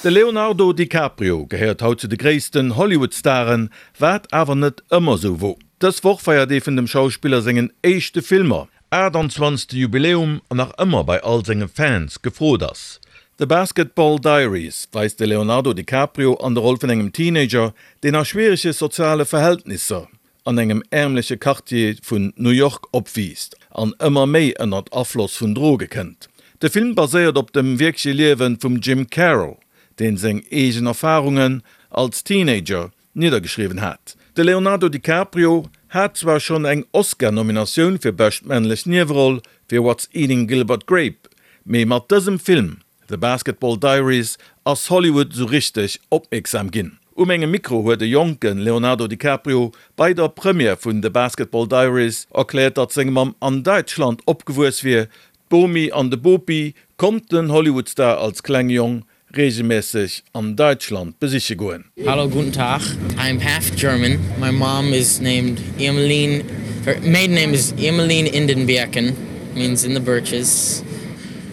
De Leonardo DiCaprio gehéiert haut zu de gréissten Hollywood-Staren, wat awer net ëmmer sou wor. Dës Woch feiert ee vun dem Schauspiller sengen éischte Filmer 28. Jubiläum an nach ëmmer bei all senge Fans gefrot ass. The Basketball Diaries weist de Leonardo DiCaprio an der Roll vun engem Teenager, deen a schwierege soziale Verhältnisser an engem ärmleche Quartier vun New York opwiisst an ëmmer méi ënnert Afloss vun Droge kënnt. De Film baséiert op dem wierkleche Liewe vum Jim Carroll, deen seng eegen Erfarungen als Teenager niddergeschriwwen hat. De Leonardo DiCaprio hat zwar schonn eng Oscar-Nominatioun fir bescht männlech Nieweroll fir What's Eating Gilbert Grape, mee mat dësem Film The Basketball Diaries ass Hollywood sou richteg opmierksam ginn. U mengem Mikro huet e jonke Leonardo DiCaprio bei der Première vun The Basketball Diaries erkläert, datt seng Mamm an Däitschland opgewuess wier. D'Bomi an de Bopi konnt den Hollywood-Star als klenge Jong reegelmässeg an Däitschland besiche goen. Hallo guten Tag, I'm half German, my mom is named Irmeline, her maiden name is Irmeline in den Birken, means in the birches.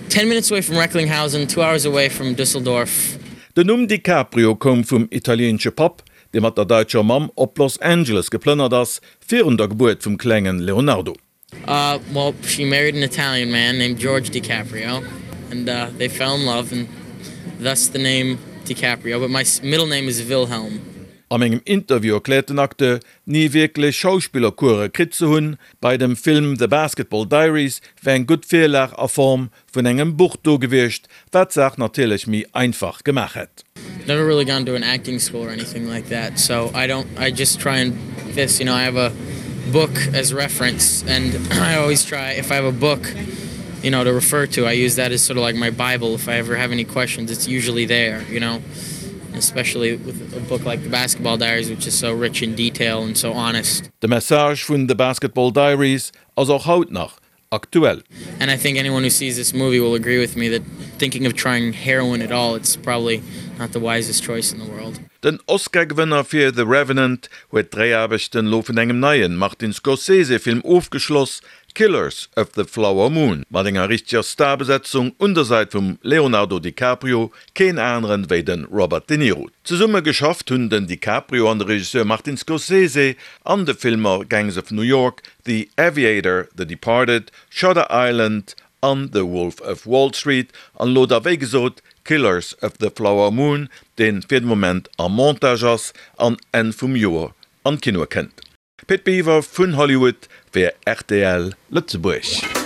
10 minutes away from Recklinghausen, 2 hours away from Düsseldorf. Den Numm DiCaprio koum vum italieenesche Papp, dee mat der daitscher Mamm op Los Angeles geplënnert ass, virun der Gebuert vum klengen Leonardo. Uh, well, she married an Italian man named George DiCaprio, and uh, they fell in love, and thus the name DiCaprio, but my middle name is Wilhelm. A mengem Interview erkläert den Acteur, ni wierklech Schauspillercourse kritt ze hunn. Bei dem Film The Basketball Diaries wär eng gutt Virlag a Form vun engem Buch do gewiescht, wat d'Saach natierlech méi einfach gemaach hätt. Never really gone to an acting school or anything like that, so I don't, I just try and this, you know, I have a book as reference and I always try, if I have a book, you know, to refer to, I use that as sort of like my bible, if I ever have any questions, it's usually there, you know. Especially with a book like The Basketball Diaries which is so rich in detail and so honest. De Message vun The Basketball Diaries ass och haut nach aktuell. And I think anyone who sees this movie will agree with me that thinking of trying heroin at all it's probably not the wisest choice in the world. Den Oscar-Gewënner fir The Revenant huet d'Dréiaarbechten elo vun engem neien Martin Scorsese-Film ofgeschloss, Killers of the Flower Moon, mat enger richteger Starbesetzung un der Sait vum Leonardo DiCaprio, keen aneren wéi de Robert De Niro. Zesumme geschafft hunn den DiCaprio an de Regisseur Martin Scorsese an de Filmer Gangs of New York, The Aviator, The Departed, Shutter Island an The Wolf of Wall Street an elo da wéi gesot Killers of the Flower Moon, deen fir de Moment am Montage ass an Enn vum Joer an d'Kinoe kënnt. Pit Biwer vun Hollywood fir rtl Lëtzebuerg.